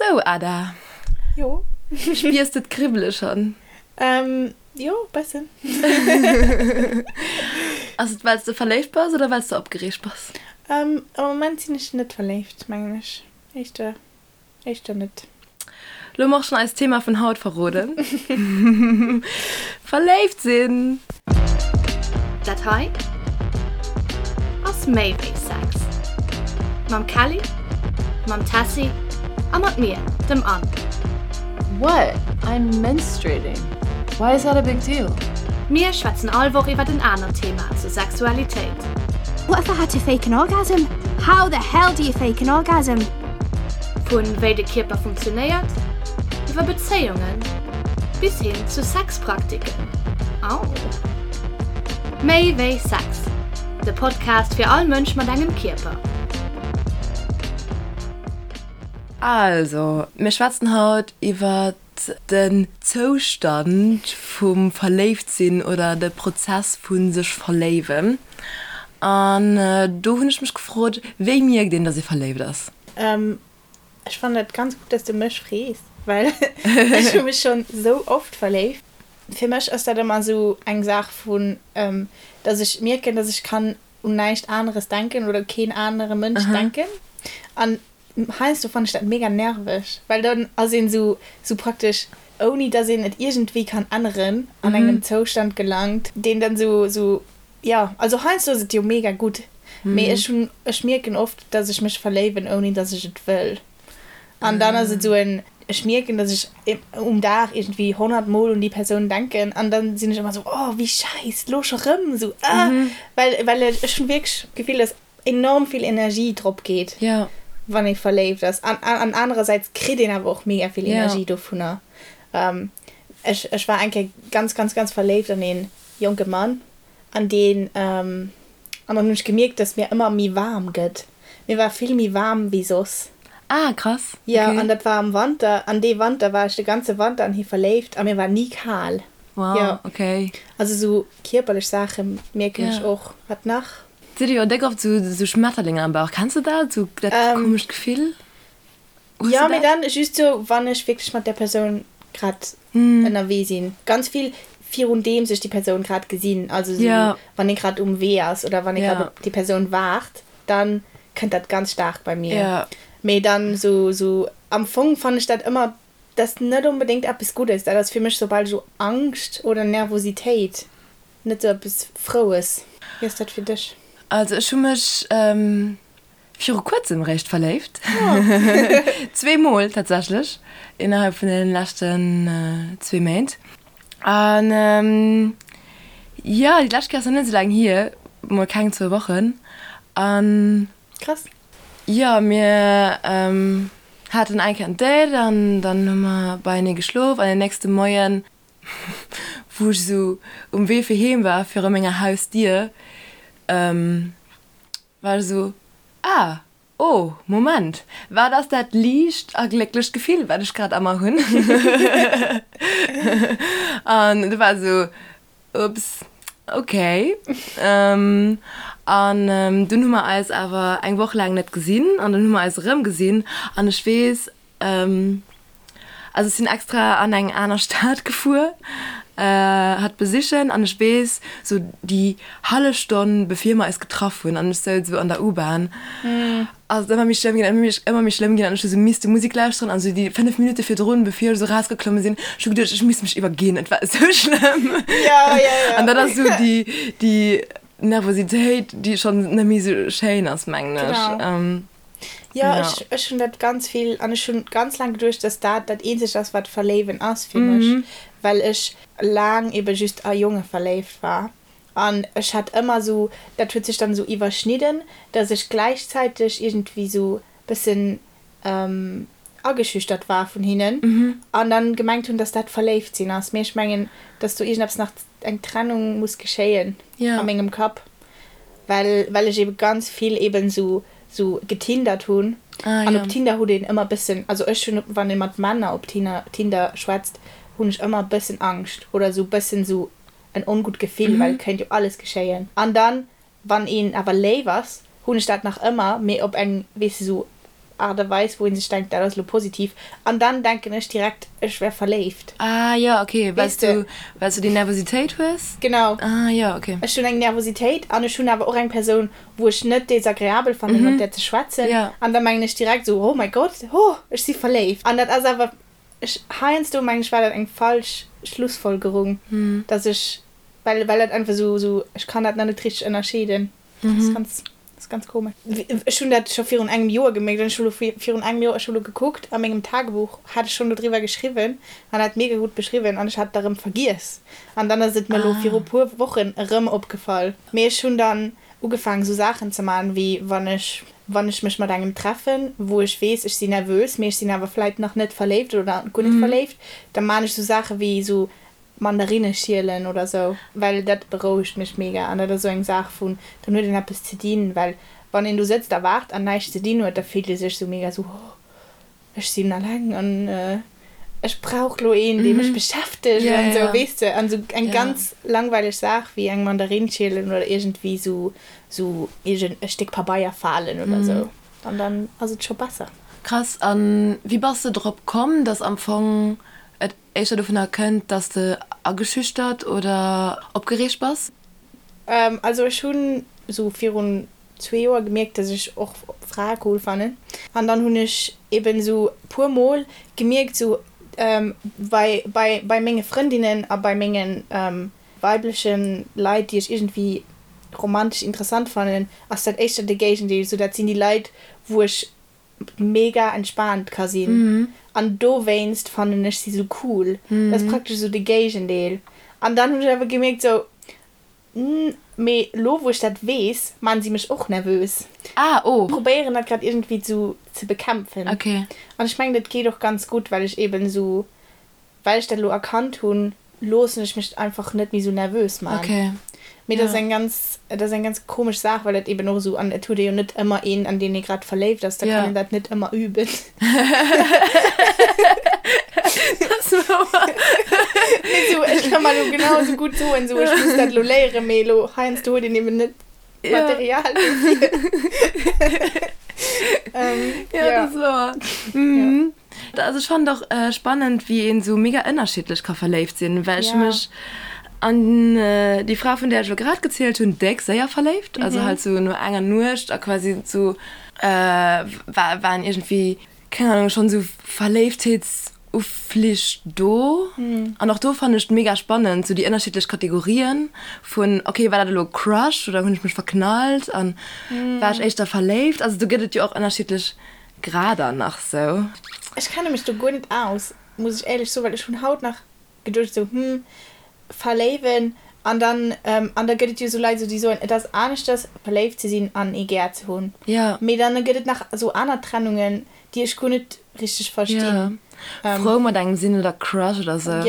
Sou Ada. Jo. Spiers de d'Kribbele schonn? Jo, bessen. Ass et well s de verléift bass oder well s de opgereegt bass? Am Moment sinn ech net verléift, mengen ech. Éischter, éischter net. Lo hu mer och schonn eist Thema vun haut verroden, Verléift sinn! Dat hei ass méi wéi Sex. Mam Kelly, mam Tessy a mat mir, dem Anne. What? I'm menstruating. Why is that a big deal? Mir schwätzen all Woch iwwert en anert Thema zur Sexualitéit. What if I had to fake an orgasm? How the hell do you fake an orgasm? Vun wéi de Kierper funktionéiert, iwwer Bezéiungen bis hin zu Sexpraktiken. Au! Méi wéi Sex, de Podcast fir all Mënsch mat engem Kierper. Also, mir schwätzen haut iwwer den Zoustand vum Verléiftsinn oder de Prozess vu sech verléiwen. An do hunn ech mech gefrot, wéi mierkt een, dass ee verléift ass? Ech fannen et ganz gutt, dass du mech frees, well ech hu mech schonn sou oft verléift. Fir mech ass dat ëmmer sou eng Saach vun, dass ech mierken, dass ech kann un näischt aneres denken oder u keen anere Mënsch denken. An heiansdo fannen ech dat mega nerveg, well dann ass een sou sou praktesch, ouni dass een et iergendwéi kann änneren, an engem Zoustand gelangt, deen dann sou sou Jo, also heiansdo ass et jo mega gutt, mee ech hunn, ech mierken oft, dass ech mech verléiwen, ouni dass ech et wëll. An dann ass et esou en, ech mierken, dass ech um Dag iergendwéi 100 Mol un déi Persoun denken an dann sinn ech ëmmer esou, oh wéi schäiss, lo scho rëm, esou ah, well, well ech hunn wierklech d'Gefill, dass enorm vill Energie drop geet, wann ee verléift ass. An, an anerersäits kritt een awer och mega vill Energie dovunner. Ech, ech war eng Kéier ganz, ganz, ganz verléift an een jonke Mann an deen, an dann hunn ech gemierkt, dass mir ëmmer méi waarm gëtt. Mir war vill méi waarm wéi soss. Ah, krass, okay. Jo, an dat war am Wanter, an dee Wanter war ech de ganze Wanter an hie verléift a mir war ni kal. Wow, Jo. okay. Also sou kierperlech Saache mierken ech och. Wat nach? Sidd dir jo déck oft sou sou Schmetterlinger am Bauch. Kenns de dat, sou dat komescht Gefill? Hues Ja, du mee dat? dann just sou, wann ech wierklech mat där Persoun grad ënnerwee sinn. Ganz vill virun deems ech déi Persoun grad gesinn. Also sou, Ja. wann ee grad um Wee ass oder wann ee grad Ja. op déi Persoun waart, dann kënnt dat ganz staark bei mir. Ja. Mee dann sou, sou am Fong fannen ech dat ëmmer, dat ass net onbedéngt eppes Guddes. Dat ass fir mech soubal sou Angscht oder Nervositéit, net sou eppes Froues. Wéi ass dat fir dech? Also ech hu mech Viru kuerzem réischt verléift. Zweemol tatsächlech innerhalb vun den leschten zwee Méint. An jo, déi lescht Kéier ass nach net esou laang hier, mol keng zwou Wochen. An Krass. jo, mir haten eng Kéier en Date an dann hu mer beienee geschlof an den nächste Moien, wou ech esou um Wee fir heem war, viru menger Hausdier, War ech esou, Ah, oh, Moment, wat ass dat liicht a glécklecht Gefill, wat ech grad a mer hunn? An du war esou, Ups, okay. An dunn hu mer eis awer eng Woch laang net gesinn an dunn hu mer eis erëmgesinn an ech weess, Also ech sinn extra an eng aner Stad gefuer hatt besichen an ech weess sou déi hallef Stonn bevir mer eis getraff hunn an ech souz esou an der U-Bahn ass et ëmmer méi schlëmm ginn an ëmmer méi schlëmm ginn an ech hu sou misste Musek lauschteren an sou déi 5 Minutte virdrun bevir ech esou rausgeklomme sinn ech hu geduecht ech misst mech iwwerginn et war esou schlëmm an dat ass sou déi déi Nervositéit déi schonn net méi sou schéin ass mengen ech. Jo, ech, ech hunn dat ganz vill an ech hunn ganz laang geduecht, dass dat dat eenzegt ass, wat Verléiwen ass fir mech, well ech laang ebe just a Jonge verléift war. An ech hat ëmmer esou, dat huet sech dann esou iwwerschnidden, dass ech gläichzäiteg iergendwéi esou bëssen ageschüchtert war vun hinnen an dann gemengt hunn, dass dat verléift sinn ass. Mee ech mengen, dass do iergendeppes nach, eng Trennung muss geschéien a mengem Kapp. Well well ech eben ganz vill eben sou sou getindert hunn. Ah, An ja. op Tinder hutt een ëmmer bëssen, also ech hunn, wann ee mat Männer op Tinder Tinder schwätzt, hunn ech ëmmer bëssen Angscht oder sou bëssen sou en ongutt Gefill, well et kéint jo alles geschéien. An dann, wann een awer léif ass, hunn ech dat nach ëmmer, mee op eng, weess de, sou. Aart a Weis, wou ee sech denkt, dat ass elo positiv. An dann denken ech direkt, ech wär verléift. Ah jo, ok, well s du, well s du déi Nervositéit hues? Genau. Ah jo, ok. Ech hunn eng Nervositéit an ech hunn awer och eng Persoun, wou ech net desagreabel fannen, mat där ze schwätzen. An da mengen ech direkt esou, oh mäi Gott, oh, ech si verléift. An dat ass awer, ech, heiansdo mengen ech, war dat eng falsch Schlussfolgerung, dass ech, well, well dat einfach esou, esou, ech kann dat nach net richteg ënnerscheeden. Dat ass ganz, dat ass ganz komesch. Ech hunn dat scho virun engem Joer gemierkt an ech hu lo virun engem Joer, ech hu lo gekuckt a mengem Tagebuch hat ech schonn dodriwwer geschriwwen an dat mega gutt beschriwwen an ech hat et erëm vergiess an dann ass et mer lo viru puer Wochen erëm opgefall. Mee ech hunn dann ugefaangen esou Saachen ze man wéi wann ech, wann ech mech mat engem treffen, wou ech weess ech sinn nervös, mee ech sinn awer vläit nach net verléift oder guer net verléift, da man ech esou Saache wéi esou Mandarinne schielen oder sou, well dat berouegt mech mega an dat ass sou eng Saach vun, dann huet een eppes ze dinn, well wann een do sëtzt a waart an näischt ze dinn huet, da fillt ee sech sou mega sou, oh ech sinn alleng an ech brauch lo een, dee mech beschäftegt an sou, weess de. An sou eng ganz langweileg Saach wéi eng Mandarinn schielen oder iergendwéi sou sou iergend e Stéck Pabeier falen oder sou, an dann ass et scho besser. Krass, an wéi bass de drop komm, dass am Fong et éischter dovunner kënnt, dass de ageschüchtert oder opgereegt bass? Also ech hunn esou virun zwee Joer gemierkt, dass ech och Frae cool fannen. An dann hunn ech eben esou puer mol gemierkt, esou bei bei bei menge Frëndinnen a bei menge weibleche Leit, déi ech iergendwéi romantesch interessant fannen, ass dat éischter de Géigendeel. Esou dat sinn déi Leit, wou ech mega entspaant ka sinn an dowéinst fannen ech si sou cool. Dat ass praktesch sou de Géigendeel. An dann hunn ech awer gemierkt sou, mee lo wou ech dat weess, maan si mech och nervös. Ah oh. Probéieren dat grad iergendwéi sou ze bekämpfen. Okay. An ech mengen dat geet och ganz gutt, well ech eben sou Well ech dat elo erkannt hunn, loossen ech mech einfach net méi sou nervös man. Okay. Mee dat ass eng ganz, dat ass eng ganz komesch Saach, well dat eben och esou, an et huet ee jo net ëmmer een, an deen ee grad verléift ass, da kann een dat net ëmmer üben. Dat ass wouer. Mee sou, ech ka mer elo genau esou gutt soen, sou ech muss dat elo léieren, mee elo heiansdo huet een eben net Material dofir. Ja, dat ass wouer. Also ech fannen et och spannend wéi een sou mega ënnerschiddlech ka verléift sinn, well ech hu mech an déi Fra vun där ech elo grad gezielt hunn déck séier verléift, also halt sou no enger Nuecht a quasi sou war waren iergendwéi keng Ahnung schonn sou Verléiftheetsuflich do. An och do fannen ech et mega spannend sou déi ënnerschiddlech Kategorien vun ok war dat elo Crush oder hunn ech mech verknallt an war ech éischter verléift, also do gëtt et jo och ënnerschiddlech Grader nach sou. Ech kenne mech do guer net aus, muss ech éierlech soen, well ech hunn haut nach geduecht sou, hm, verléiwen an dann, an da gëtt et jo sou Leit sou déi soen, et ass aneschters verléift ze sinn an ee gär ze hunn, mee dann gëtt et nach sou aner Trennungen, déi ech guer net richteg verstinn. Jo, frou mat engem sinn oder Crush oder sou.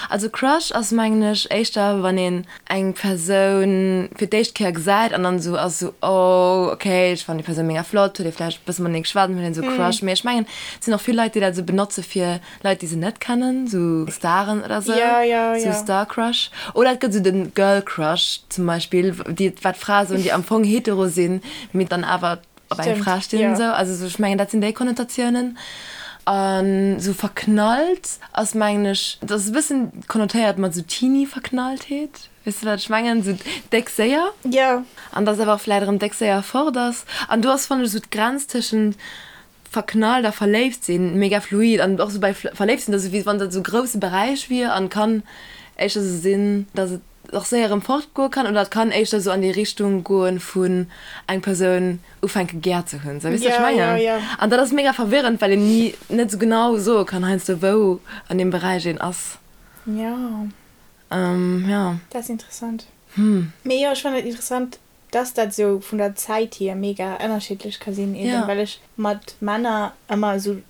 Also Crush ass mengen ech éischter wann een eng Persoun fir d'éischt Kéier gesäit an dann esou ass esou oh ok ech fannen déi Persoun mega flott, huet ee vläicht e bësse matenee geschwat an huet een esou Crush. Mee ech mengen et sinn och vill Leit déi dat esou benotze fir Leit déi se net kennen, esou Staren oder sou, esou Star Crush. Oder et gëtt esou de Girl Crush zum Beispill, déi wat Frae soen déi am Fong hetero sinn, mee dann awer op eng Fra stinn an esou. Also ech mengen dat sinn déi Konnotatiounen. An esou verknallt ass mengen ech, dat ass e bëssen konnotéiert mat esou Teenie-Verknalltheet, weess de wat ech mengen, esou déck séier. Jo. An dass awer och vläit erëm déck séier fort ass. An do ass fannen ech esou d'Grenz tëschent verknallt a verléift sinn mega fluid an och esou bei verléift sinn, dat ass esou wéi wann dat esou e grousse Beräich wier an kann éischter esou sinn, dass et och séier erëm fort goe kann oder et kann éischter esou an déi Richtung goen vun eng Persoun ufänke gär ze hunn, sou weess de wat ech mengen? An dat ass mega verwirrend, well een ni net esou genau soe kann heiansdo wou an deem Beräich een ass. Jo. Jo. Dat ass interessant. Mee jo, ech fannen et interessant, dass dat esou vun der Zäit hier mega ënnerschiddlech ka sinn, eben well ech mat Männer ëmmer esou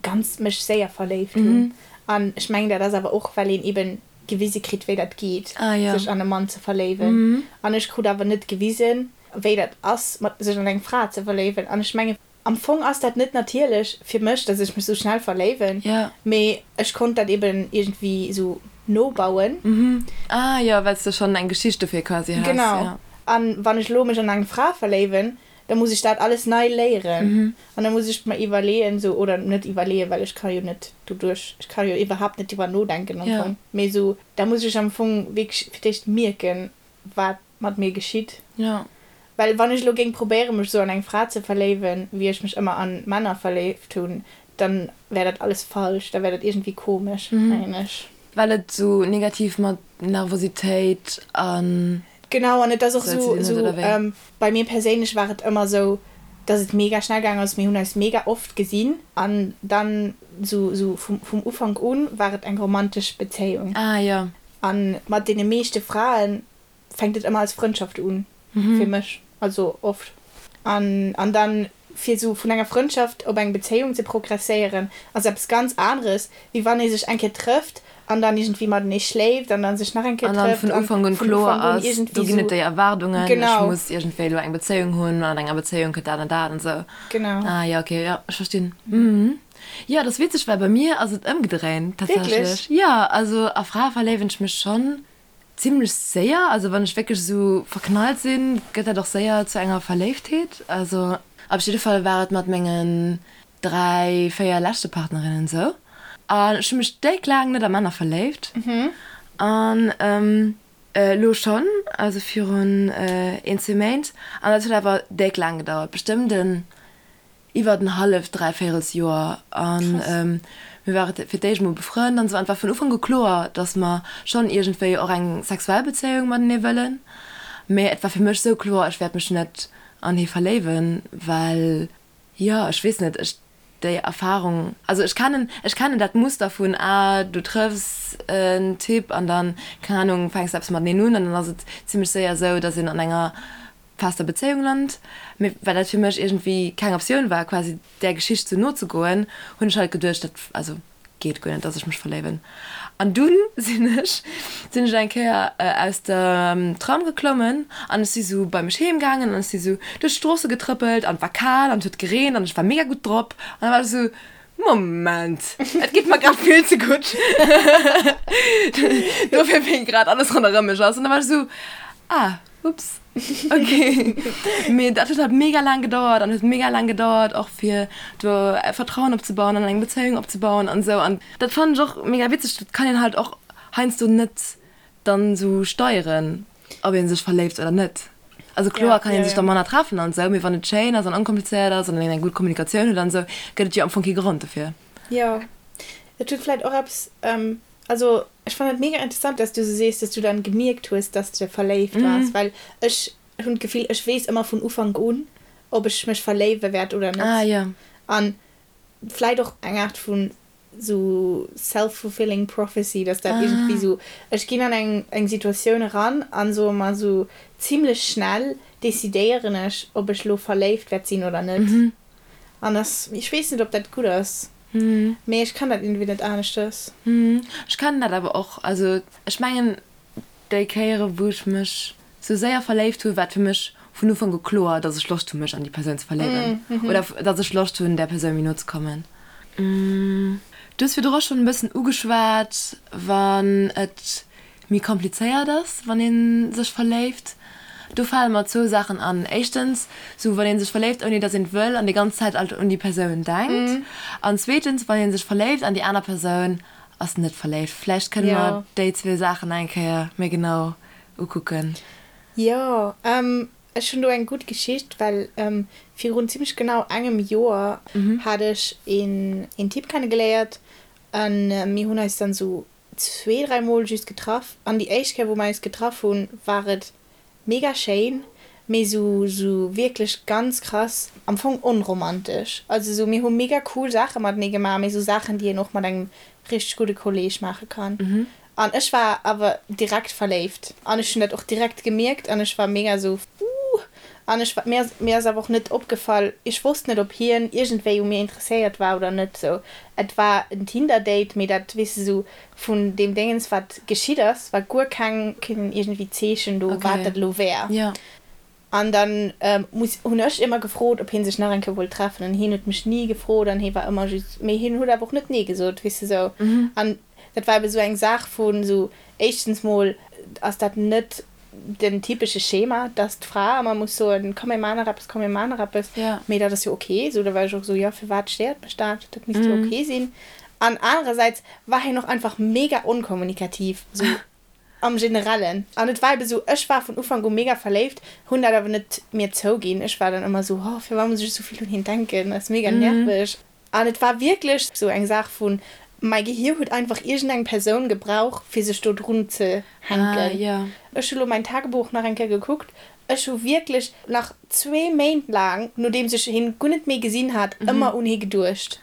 ganz mech séier verléift hunn. An ech mengen dat ass awer och well een eben gewise kritt wéi dat geet sech an e Mann ze verléiwen. An ech krut awer net gewisen wéi dat ass mat sech an eng Fra ze verléiwen. An ech mengen am Fong ass dat net natierlech fir mech, dass ech mech sou schnell verléiwen, mee ech konnt dat eben iergendwéi sou nobauen. Ah jo, well s de schonn eng Geschicht dofir quasi has. Genau. An wann ech elo mech an eng Fra verléiwen, Da muss ech dat alles nei léieren an da muss ech mer iwwerleeën esou, oder net iwwerleeën, well ech ka jo net doduerch, ech ka jo iwwerhaapt net driwwer nodenken am Fong, mee esou, da muss ech am Fong wierklech fir d'éischt mierken, wat mat mir geschitt. Well wann ech elo géing probéieren, mech esou an eng Fra ze verléiwen, wéi ech mech ëmmer an Männer verléift hunn, dann wär dat alles falsch, da wär dat iergendwéi komesch, mengen ech. Well et esou negativ mat Nervositéit an. Genau, an et ass och esou, esou, bei mir perséinlech war et ëmmer esou, dass et mega schnell gaang ass, mir hunn eis mega oft gesinn an dann esou, esou vum, vum Ufank un war et eng romantesch Bezéiung. Ah jo. An mat deene meeschte Fraen fänkt et ëmmer als Frëndschaft un, fir mech, also oft. An, an dann fir esou vun enger Frëndschaft op eng Bezéiung ze progresséieren, ass eppes ganz aneres, wéi wann ee sech eng Kéier trëfft an dann iergendwéi matenee schléift an dann sech nach eng Kéier An dann trëfft vun an Ufank un vun kloer Ufank un ass, do iergendwéi ginn et esou. déi Erwaardungen, ech Genau. muss iergendwéi elo eng Bezéiung hunn, an enger Bezéiung kënnt dat an dat an esou. Genau. Ah jo, okay, jo, ech verstinn. Mhm. Jo, dat ass witzeg, well bei mir ass et ëmgedréint Wierklech? tatsächlech. Jo, also a Frae verléiwen ech mech schonn Zimlech séier, also wann ech wierklech esou verknallt sinn, gëtt dat och séier zu enger Verléiftheet. Also op jidde Fall war et mat mengen 3, 4 leschte Partnerinnen esou. An ech hu mech déck laang net a Männer verléift. An elo schonn, also virun een, zwee Méint. An dat huet awer déck laang gedauert, bestëmmt en iwwert en halleft, dräivéierels Joer an mir ware fir d'éischt mol befrënnt an esou an et war vun Ufank u kloer, datt mer schonn iergendwéi och eng sexuell Bezéiung matenee wëllen, mee et war fir mech esou kloer, ech wäert mech net an hie verléiwen, well jo, ech weess net, ech déi Erfarung, also ech kennen, ech kennen dat Muster vun, ah du trëffs en Typ an dann, keng Anung, fänks de eppes mateneen un an dann ass et zimmlech séier esou, datt een an enger fester Bezéiung lant, mee well dat fir mech iergendwéi keng Optioun war, quasi där Geschicht sou nozegoen, hunn ech halt geduecht, dat, also geet guer net, dass ech mech verléiwen. An dunn sinn ech, sinn ech eng Kéier aus dem Tram geklommen an ech si sou bei mech heem gaangen an ech si sou duerch d'Stroosse getrëppelt an et war kal an et huet gereent an ech war mega gutt drop an da war ech sou, Moment, et geet mer grad vill ze gutt dofir wéi grad alles ronderëm mech ass. An da war ech sou, ah. Ups, ok. Mee dat huet halt mega laang gedauert an huet mega laang gedauert och fir do Vertrauen opzebauen an eng Bezéiung opzebauen an esou. An dat fannen ech och mega witzeg, dat kann een halt och heiansdo net dann esou steieren, ob ee sech verléift oder net. Also kloer kann ee sech da manner treffen an esou, mee wann et schéin ass an onkomplizéiert ass an een eng gutt Kommunikatioun huet an esou, gëtt et jo am Fong kee Grond dofir. Jo, et huet vläit och eppes Also ech fannen et mega interessant dass du sou sees dass du dann gemierkt hues dass de verléift waars, well ech hunn d'Gefill ech weess ëmmer vun Ufank un ob ech mech verléiwe wäert oder net. Ah jo. An vläit och eng Art vun sou self-fulfilling prophecy, dass dat iergendwéi sou ech ginn an eng eng Situatioun eran an soe mer sou zimlech schnell decidéieren ech ob ech lo verléift wäert sinn oder net. An ass, ech weess net ob dat gutt ass, mee ech kann dat iergendwéi net aneschtes. Ech kennen dat awer och. Also ech mengen déi Kéiere wou ech mech sou séier verléift hu war et fir mech vun Ufank u kloer, datt ech Loscht hu mech an déi Persoun ze verléiwen oder datt ech Loscht hunn där Persoun méi no ze kommen. Du hues virdru schonn e bëssen ugeschwat, wann et méi komplizéiert ass, wann ee sech verléift. Do fale mer zwou Saachen an. Éischtens, sou wann ee sech verléift ouni datt een et wëll an déi ganz Zäit alt un déi Persoun denkt. An zweetens, wann ee sech verléift an déi aner Persoun ass net verléift. Vläicht kënne mer déi zwee Saachen eng Kéier méi genau ukucken. Jo, ech hunn do eng gutt Geschicht, well virun zimmlech genau engem Joer hat ech een Typ kennegeléiert an mir hunn eis dann sou zwee, dräi Mol just getraff an déi éischt Kéier wou mer eis getraff hunn, war et mega schéin, mee sou sou wierklech ganz krass am Fong onromantesch. Also sou mir hu mega cool Saache matenee gemaach, mee sou Saachen déi een och mat engem richteg gudde Kolleeg maache kann. An ech war awer direkt verléift an ech hunn dat och direkt gemierkt an ech war mega sou uuh an ech war mir ass mir ass awer och net opgefall, ech wosst net ob hien iergendwéi u mir interesséiert war oder net sou. Et war en Tinder-Date, mee dat, weess de, sou vun deem Déngens, wat geschitt ass, war guer keng, keen iergendwéi Zeechen do, wat dat elo wär. An dann muss, hunn ech ëmmer gefrot, ob hie sech nach eng Kéier wollt treffen, an hien huet mech ni gefrot an hie war ëmmer just, mee hien huet awer och net nee gesot, weess de, sou. An dat war ebe sou eng Saach vun sou, éischtens mol ass dat net. den typesche Schema, dass d'Fra ëmmer muss soen, komm mir maachen nach eppes, komm mir maachen nach eppes. Mee dat ass jo ok. Esou, da war ech och esou, jo firwat stéiert mech dat, dat misst jo ok sinn. An anerersäits war hien och einfach mega onkommunikativ, esou am Generellen. An et war ebe sou, ech war vun Ufank u mega verléift, hunn dat awer net mir zouginn. Ech war dann ëmmer sou, oh firwat muss ech esou vill un hien denken, dat ass mega nerveg. An et war wierklech sou eng Saach vun, mäi Gehier huet einfach iergendeng Persoun gebrauch, fir sech do drun ze hänken. Ech hu lo mäin Tagebuch nach eng Kéier gekuckt, ech hu wierklech nach zwee Méint laang, nodeems ech hien guer net méi gesinn hat, ëmmer un hie geduecht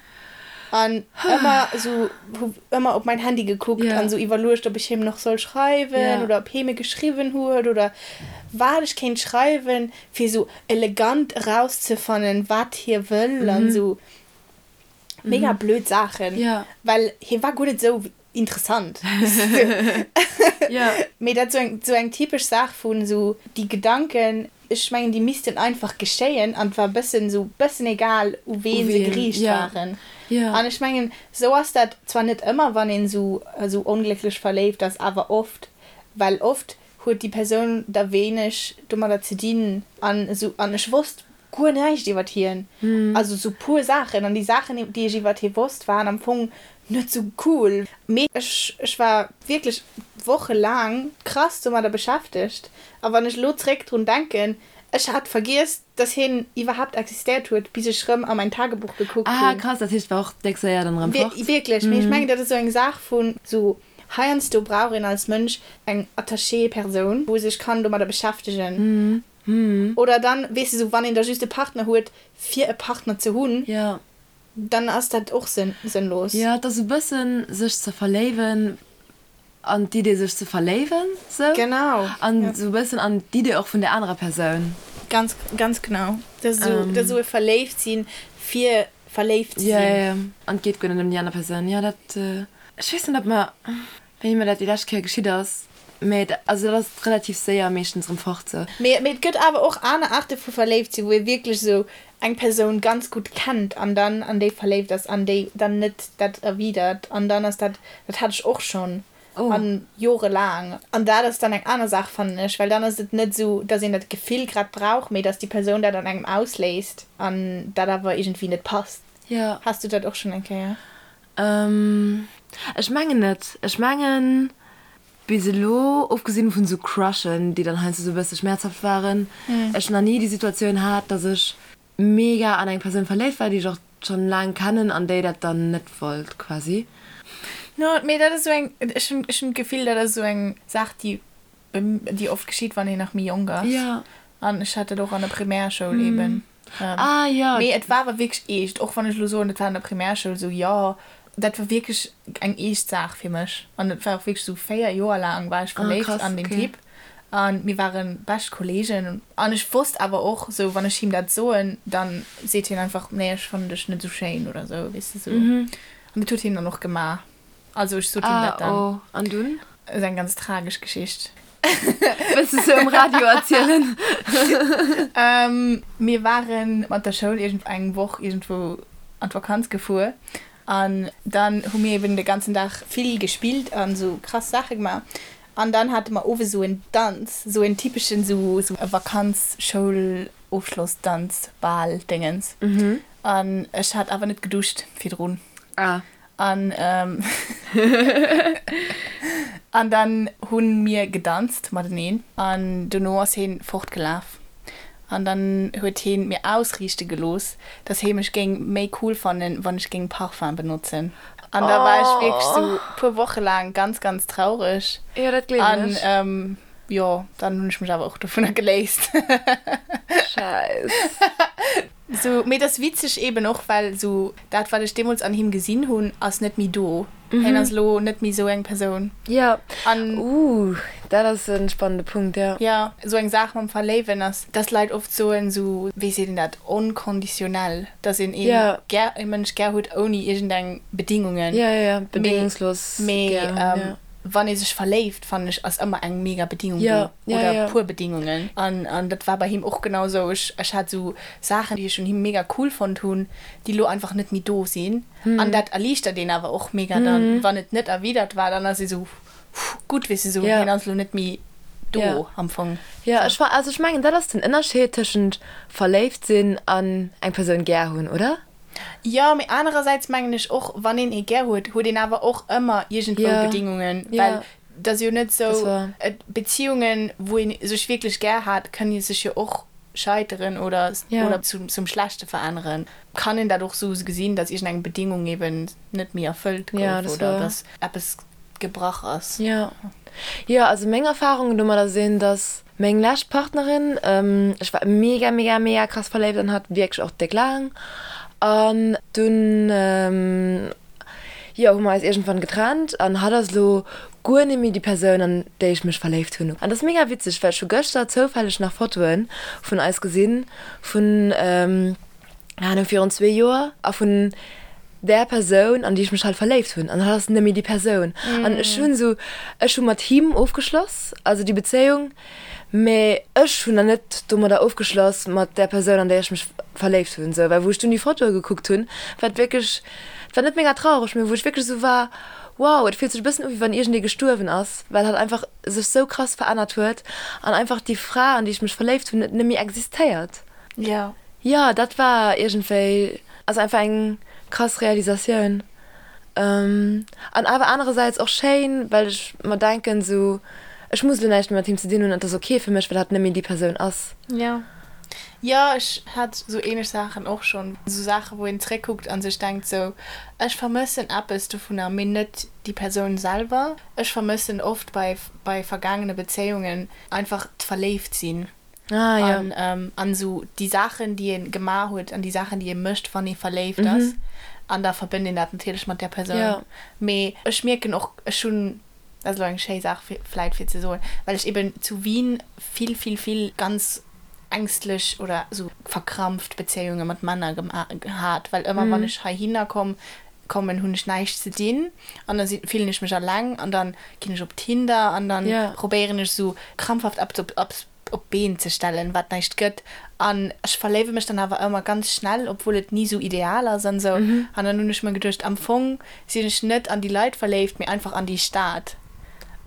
an ëmmer sou, hu ëmmer op mäin Handy gekuckt an sou iwwerluecht, ob ech him nach soll schreiwen oder ob hie mir geschriwwen huet oder wat ech kéint schreiwen. fir sou elegant erauszefannen, wat hie wëll an sou mega blöd Saachen, well hie war guer net sou interessant. Mee dat sou eng sou eng typesch Saach vun sou déi Gedanken, ech mengen déi missten einfach geschéien an et war bëssen sou bëssen egal u ween se geriicht waren. An ech mengen sou ass dat zwar net ëmmer wann een sou sou onglécklech verléift ass, awer oft, well oft huet déi Persoun da wéineg domadder ze dinn an esou an ech wosst guer näischt iwwert hien, also sou puer Saachen an déi Saachen déi ech iwwert hie wosst waren am Fong net sou cool, mee ech ech war wierklech wochelaang krass domadder beschäftegt a wann ech elo zréck drun denken, ech hat vergiess dass hien iwwerhaapt existéiert huet bis ech rëm a mäin Tagebuch gekuckt hunn. Ah krass, dat heescht war och déck séier dann erëm fort. Wierklech, mee ech mengen dat ass sou eng Saach vun sou Heiansdo brauch een als Mënsch eng Attaché-Persoun, wou sech kann domadder beschäftegen. Oder dann, weess de, sou wann een da just e Partner huet, fir e Partner ze hunn, dann ass dat och sënnlos. Jo, et ass e bëssen sech ze verléiwen an d'Idee sech ze verléiwen, sou. Genau. An sou e bëssen an d'Idee och vun der anerer Persoun. Ganz, ganz genau. Dat ass esou, dat ass esou e Verléiftsinn fir verléift ze sinn. Jo, jo, jo. An et geet guer net ëm déi aner Persoun. Jo, dat, ech weess net, ob mer, wéini mer dat déi lescht Kéier geschitt ass, mä also dat ass relativ séier meeschtens erëm fort sou. Mee, mee et gëtt awer och aner Aarte vu verléift sinn, wou ee wierklech esou eng Persoun ganz gutt kennt an dann an déi verléift ass an déi dann net dat erwidert an dann ass dat, dat hat ech och schonn. An jorelaang. An dat ass dann eng aner Saach, fannen ech, well dann ass et net esou, dass een dat Gefill grad brauch, mee dass déi Persoun dat an engem ausléist an dat awer iergendwéi net passt. Jo. Has du dat och schonn eng Kéier? Ech mengen net. Ech mengen bis elo, ofgesinn vun esou Crushen, déi dann heiansdo esou e bësse schmäerzhaft waren, ech nach ni déi Situatioun hat, dass ech mega an eng Persoun verléift war, déi ech och schon laang kennen an déi dat dann net wollt quasi. No, mee dat ass esou eng, ech hunn, ech hunn d'Gefill, dat ass esou eng Saach, déi, déi oft geschitt, wann een nach méi jonk ass. Ja. An ech hat dat och an der Primärschoul eben. Ah, jo. Mee et war awer wierklech eescht, och wann ech elo soen, et war an der Primärschoul esou, jo, dat war wierklech eng eescht Saach fir mech. An et war och wierklech esou, 4 Joer laang war ech verléift an deen Typ. An mir waren bescht Kollegen. An ech wosst awer och sou, wann ech him dat soen, dann seet hien einfach, nee, ech fannen dech net sou schéin oder sou, weess de sou. An dat huet hien dann och gemaach. Also ech sot him dat dann. Ah, oh, an dunn? Ass eng ganz tragesch Geschicht. Wëlls de se um Radio erzielen? Mir ware mat der Schoul iergend eng Woch iergendwou an d'Vakanz gefuer. An dann hu mir eben de ganzen Dag vill gespillt an sou krass Saache gemaach. An dann hate mer owes esou en Danz, esou en typeschen esou e Vakanz-Schoul-Ofschlossdanz, Bal Déngens. An ech hat awer net geduscht virdrun. Ah. An an dann hu mir gedanzt mateneen an dono ass heen fortgelaf. An dann huet heen mir ausriichte gelooss, dass hee mech géing méi cool fannen, wann ech géing Parfum benotzen. An da war ech wierklech sou puer Woche laang ganz, ganz traureg. Jo, dat gleewen ech. An jo, dann hunn ech mech awer och dovunner geléist. Scheiss. Sou, mee et ass witzeg eben och, well sou dat, wat ech deemools an him gesinn hunn, ass net méi do. Hien ass elo net méi sou eng Persoun. Jo, uh, dat ass e spannende Punkt, jo. Jo, sou eng Saach mam Verléiwen ass, dass Leit oft soen, sou, wéi seet een dat, onconditionnel, dass een een gär, e Mënsch gär huet ouni iergendeng Bedingungen. Jo, jo, jo, bedingungslos gär hunn, jo. Mee wann ee sech verléift, fannen ech, ass ëmmer eng mega Bedingung do, oder e puer Bedingungen. An, an dat war bei him och genau sou. Ech, ech hat sou Saachen, déi ech un him mega cool fonnt hunn, déi lo einfach net méi do sinn. An dat erliichtert een awer och mega dann, wann et net erwidert war, dann ass ee sou, Gutt, weess de, sou, hien ass lo net méi. Do am Fong. Jo, ech war, also ech mengen dat ass den Ënnerscheed tëschent verléift sinn an eng Persoun gär hunn, oder? Jo, mee anerersäits mengen ech och, wann een ee gär huet, huet een awer och ëmmer iergendwou Bedingungen, well et ass jo net sou, Beziehungen, wou ee sech wierklech gär hat, kënne sech jo och scheiteren oder oder zum Schlechte veränneren. Kann een dat och sou gesinn, datt iergendeng Bedingung eben net méi erfëllt gouf oder datt eppes gebrach ass. Jo, jo, also meng Erfahrungen domadder sinn, dass meng lescht Partnerin, ech war mega, mega, mega krass verléift an hatt wierklech och déck laang an dunn, jo, hu mer eis iergendwann getrennt an hatt ass elo guer net méi déi Persoun an déi ech mech verléift hunn. An dat ass mega witzeg, well ech hu gëschter zoufälleg nach Fotoe vun eis gesinn vun, Keine Ahnung, virun zwee Joer a vun där Persoun, an déi ech mech halt verléift hunn. An hatt ass net méi déi Persoun. An ech hunn esou, ech hu mat him ofgeschloss, also déi Bezéiung, mä ech hunn nach net domadder ofgeschloss mat där Persoun, an déi ech mech verléift hunn. Esou, well wou ech dunn déi Fotoe gekuckt hunn, war et wierklech, et war net mega traureg, mä wou ech wierklech esou war, wow, et fillt sech e bëssen u wéi wann iergendee gestuerwen ass, well hatt einfach sech sou krass verännert huet an einfach déi Fra, an déi ech mech verléift hunn, net méi existéiert. Jo. Jo, dat war iergendwéi, also einfach eng krass Realisatioun. An awer anerersäits och schéin, well ech mer denken esou, ech muss elo näischt méi mat him ze dinn hunn an et ass ok fir mech, well hatt net méi déi Persoun ass. Jo. Jo, ech hat esou ähnlech Saachen och schonn. Esou Saachen, wou een zréckkuckt a sech denkt esou, ech vermëssen eppes dovunner, mee net déi Persoun selwer. Ech vermëssen oft bei bei vergaangene Bezéiungen einfach d'Verléiftsinn. Ah, ja. An, ähm, an esou déi Saachen, déi ee gemaach huet an déi Saachen, déi ee mécht, wann ee verléift ass. An da verbënnt een dat natierlech mat där Persoun. Ja. Mee ech mierken och, ech hunn, dat ass elo eng schéi Saach fir, vläit fir ze soen, well ech eben zu Wien vill, vill, vill ganz ängstlech oder esou verkrampft Bezéiunge mat Männer gema hat, well ëmmer wann ech heihinner komm, kommen, hunn ech näischt ze dinn an da si fillen ech mech alleng an dann ginn ech op Tinder an dann Ja. probéieren ech esou krampfhaft eppes op op op d'Been ze stellen, wat näischt gëtt an ech verléiwe mech dann awer ëmmer ganz schnell, obwuel et ni esou ideal ass an esou. An dann hunn ech mer geduecht, am Fong sinn ech net an déi Leit verléift, mee einfach an déi Stad.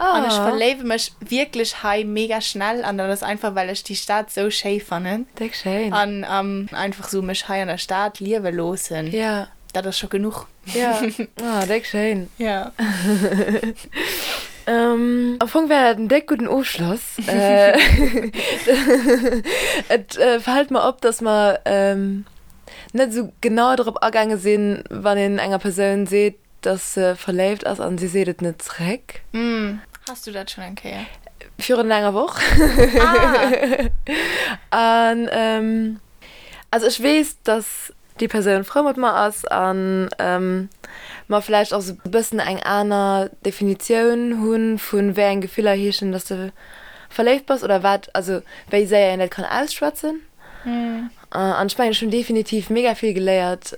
An ech Ah. verléiwe mech wierklech hei mega schnell an dat ass einfach, well ech déi Stad esou schéi fannen Déck schéin. an einfach esou mech hei an der Stad liewe loossen. Ja. Dat ass scho genuch. Ja, ah, déck schéin. Ja. Ähm, am Fong wär dat en déck gudden Ofschloss. Et fält mer op, dass mer net esou genau drop agaange sinn, wann een enger Persoun seet, dass se verléift ass an si seet et net zréck. Has du dat schonn eng Kéier? Virun enger Woch. Ah! An also ech weess, dass déi Persoun frou mat mer ass an mer vläicht och sou e bëssen eng aner Definitioun hu vu wéi eng Gefiller heeschen, dass de verléift bass oder wat, also wéi séier een dat kann ausschwätzen. An ech mengen, ech hunn definitiv mega vill geléiert,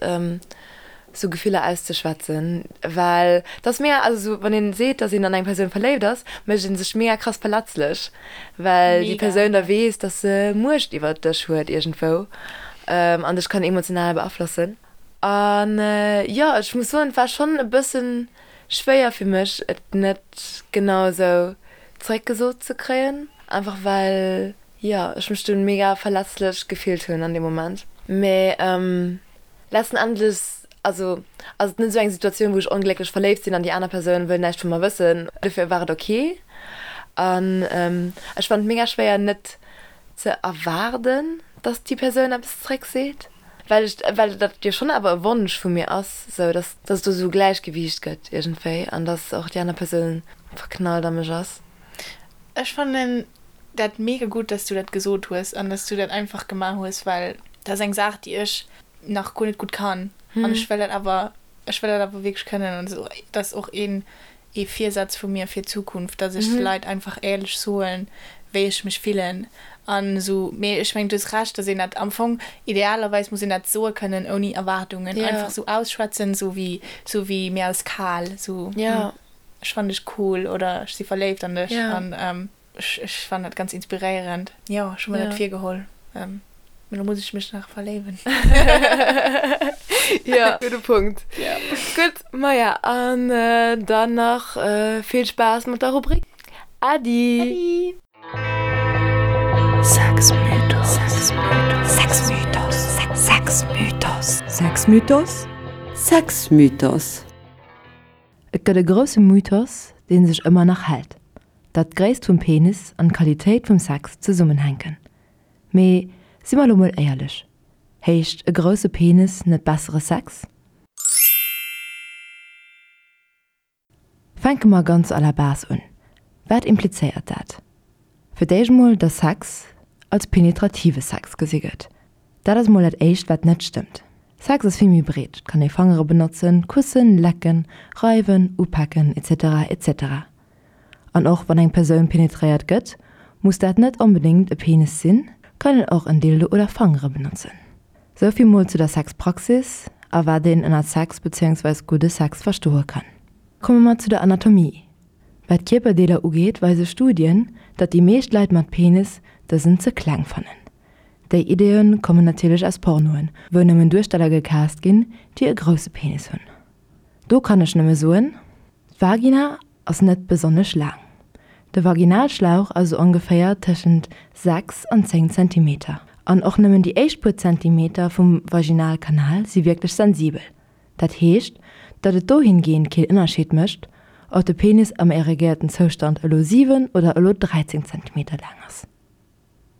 sou Gefiller auszeschwätzen, well et ass mega, also sou wann een seet, dass een an eng Persoun verléift ass, mécht ee sech mega krass verletzlech, well déi Persoun da weess, dass se Muecht iwwert dech huet iergendwou an dech kann emotional beaflossen. An jo, ech muss soen, et war schonn e bëssen schwéier fir mech, et net genau esou zeréckgesot ze kréien, einfach well, jo, ech mech dunn mega verletzlech gefillt hunn an deem Moment. Mee Letzten Endes, also ass et net esou eng Situatioun, wou ech onglécklech verléift sinn an déi aner Persoun wëll näischt vu mer wëssen. Dofir war et ok. An ech fannen et mega schwéier net ze erwaarden, dass déi Persoun eppes zréck seet, well ech, well dat jo schonn awer e Wonsch vu mir ass, esou dass, dass et do esou e Gläichgewiicht gëtt iergendwéi an dass och déi aner Persoun verknallt a mech ass. Ech fannen dat mega gutt, dass du dat gesot hues an dass du dat einfach gemaach hues, well dat ass eng Saach, déi ech nach guer net gutt kann an ech wëll dat awer, ech wëll dat awer wierklech kënnen an dat ass och een ee Virsaz vu mir fir d'Zukunft, dass ech de Leit einfach éierlech soen, wéi ech mech fillen an esou. Mee ech mengen, du hues Recht, dass een dat am Fong, idealerweis muss een dat soe kënnen ouni Erwaardungen, einfach esou ausschwätzen, esou wéi, esou wéi mir ass kal, esou. Ech fannen dech cool oder ech si verléift an dech an ech fannen dat ganz inspiréierend. Jo, ech hu mer dat virgeholl. Mee lo muss ech mech nach verléiwen. Jo, gudde Punkt. Gutt, maja, an dann nach vill Spaass mat der Rubrik. Äddi! Äddi! Sexmythos. Sexmythos. Sexmythos. Sexmythos. Sexmythos. Et gëtt e grousse Mythos, dee sech ëmmer nach hält, datt d'Gréisst vum Penis an d'Qualitéit vum Sex zesummenhänken. Mee si mer elo mol éierlech, heescht e grousse Penis net bessere Sex? Fänke mer ganz à la base un. Wat implizéiert dat? Fir d'éischt mol, dass Sex als penetrative Sex gesi gëtt. Dat ass mol dat éischt wat net stëmmt. Sex ass vill méi breet, et kann ee Fangere benotzen, kussen, lecken, reiwen, upaken etc etc. An och wann eng Persoun penetréiert gëtt, muss dat net onbedéngt e Penis sinn, kann een och en Dildo oder Fangere benotzen. Souvill mol zu der Sexpraxis a wat een ënnert Sex beziéungsweis gudde Sex verstoe kann. Komme mer zu der Anatomie. Wat d'Kierperdeeler ugeet, weise Studien, datt déi meescht Leit mat Penis dësen ze kleng fannen. Déi Ideeë kommen natierlech aus Pornoen, wou nëmmen Duersteller gecast ginn, déi e grousse Penis hunn. Do kann ech nëmme soen, D'Vagina ass net besonnesch laang. De Vaginalschlauch ass esou ongeféier tëschent 6 an 10 Zentimeter. An och nëmmen déi éischt puer Zentimeter vum Vaginalkanal si wierklech sensibel. Dat heescht, datt et dohingehend keen Ënnerscheed mécht, ob de Penis am erigéierten Zoustand elo 7 oder elo 13 Zentimeter laang ass.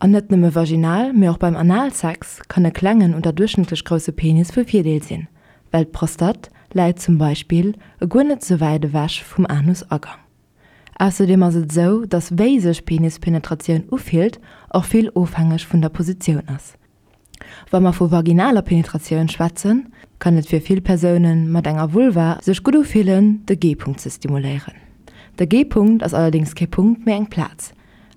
An net nëmme vaginal, mee och beim Analsex kann e klengen oder duerchschnëttlech grousse Penis vu Virdeel sinn, well d'Prostate läit zum Beispill e guer net sou wäit ewech vum Anusagang. Ausserdeem ass et esou, datt wéi sech Penispenetratioun ufillt och vill ofhängeg vun der Positioun ass. Wa mer vu vaginaler Penetratioun schwätzen, kann et fir vill Persoune mat enger Vulva sech gutt ufillen, de G-Punkt ze stimuléieren. De G-Punkt ass allerdéngs kee Punkt, mee eng Plaz.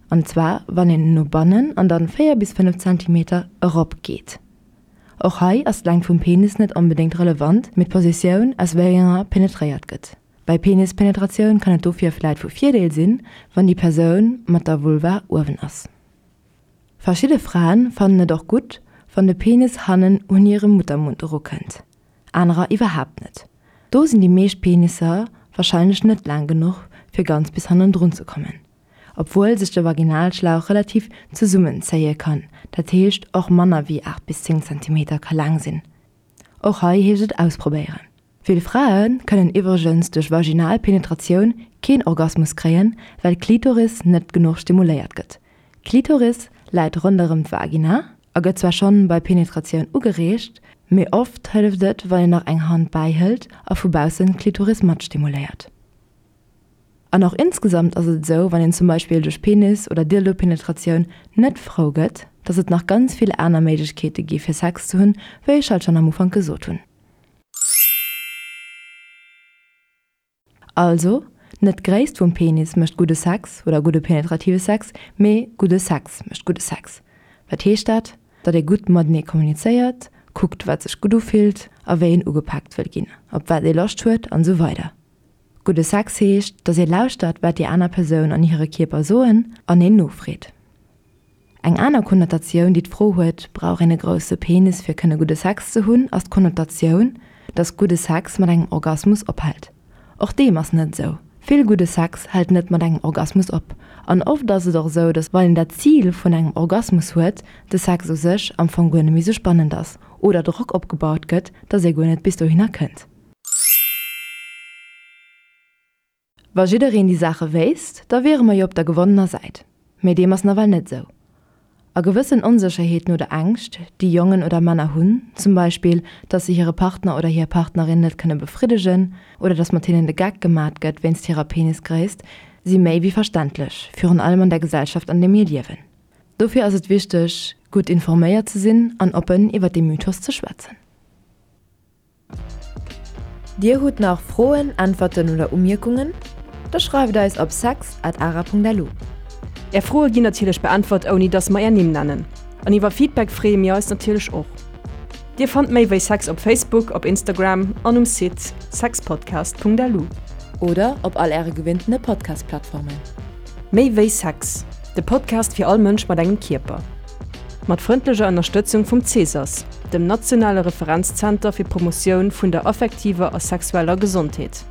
An zwar wann een no bannen an dann 4 bis 5 Zentimeter erop geet. Och hei ass d'Längt vum Penis net onbedéngt relevant, mee d'Positioun aus wéi enger penetréiert gëtt. Bei Penispenetratioun kann et dofir vläit vu Virdeel sinn, wann déi Persoun mat der Vulva uewen ass. Verschidde Fraen fannen et och gutt, wann de Penis hannen un hire Muttermund erukënnt, anerer iwwerhaapt net. Do sinn déi meescht Penisser warscheinlech net laang genuch, fir ganz bis hannendrun ze kommen, obwuel sech de Vaginalschlauch relativ zesummenzéie kann, dat heescht och manner wéi 8 bis 10 Zentimeter ka laang sinn. Och hei heescht et ausprobéieren. Vill Frae kënnen iwwregens duerch vaginal Penetratioun keen Orgasmus kréien, well d'Klitoris net genuch stimuléiert gëtt. D'Klitoris läit ronderëm d'Vagina a gëtt zwar schonn bei Penetratioun ugereegt, mee oft hëlleft et, wann een nach eng Hand bäihëlt a vu baussen d'Klitoris mat stimuléiert. An och insgesamt ass et esou, wann een zum Beispill duerch Penis oder Dildo-Penetratioun net frou gëtt, dass et nach ganz vill aner Méiglechkeete gi fir Sex ze hunn, wéi ech halt schonn am Ufank gesot hunn. Also, net d'Gréisst vum Penis mécht gudde Sex oder gudde penetrative Sex, mee gudde Sex mécht gudde Sex. Wat heescht dat? Datt ee gutt matenee kommunizéiert, kuckt wat sech gutt ufillt a wéi een ugepaakt wëll ginn, op wat ee Loscht huet an esou weider. Gudde Sex heescht, datt ee lauschtert wat déi aner Persoun an hire Kierper soen an een nofreet. Eng aner Konnotatioun, déi d'Fro huet, Brauch een e grousse Penis fir kënne gudde Sex ze hunn, ass d'Konnotatioun, dass gudde Sex mat engem Orgasmus ophält. Och deem ass net esou. Vill gudde Sex hält net mat engem Orgasmus op. An oft ass et och esou, dass wann een dat Zil vun engem Orgasmus huet, de Sex u sech am Fong guer net méi esou spannend ass oder Drock opgebaut gëtt, dass ee guer net bis dohinner kënnt. Wa jiddereen déi Saache wéisst, da wiere mer jo op der gewonnener Säit. Mee deem ass nawell net esou. A gewëssen Onsécherheeten oder Ängscht, déi Jongen oder Männer hunn, zum Beispill, dass se hire Partner oder hir Partnerin net kënne befriddegen oder dass mat hinnen de Geck gemat gëtt wéinst hirer Penisgréisst, si méi wéi verständlech, virun allem an der Gesellschaft an där mir liewen. Dofir ass et wichteg, gutt informéiert ze sinn an oppen iwwer dee Mythos ze schwätzen. Dir hutt nach Froen, Äntwerten oder Umierkungen? Da schreift eis op sex at ara.lu. Är Froe ginn natierlech beäntwert ouni dass mer är Nimm nennen. An iwwer Feedback freeë mir eis natierlech och. Dir fannt méi wéi Sex op Facebook, op Instagram an um Site sexpodcast.lu. Oder op all äre gewinntene Podcast-Plattformen. Méi wéi Sex, de Podcast fir all Mënsch mat engem Kierper. Mat frëndlecher Ënnerstëtzung vum CESAS, dem nationale Referenzzenter fir d'Promotioun vun der affektiver a sexueller Gesondheet.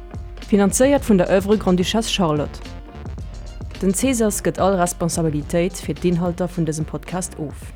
Finanzéiert vun der Oeuvre Grande-Duchesse Charlotte. Den Cesas gëtt all Responsabilitéit fir d'Inhalter vun dësem Podcast of.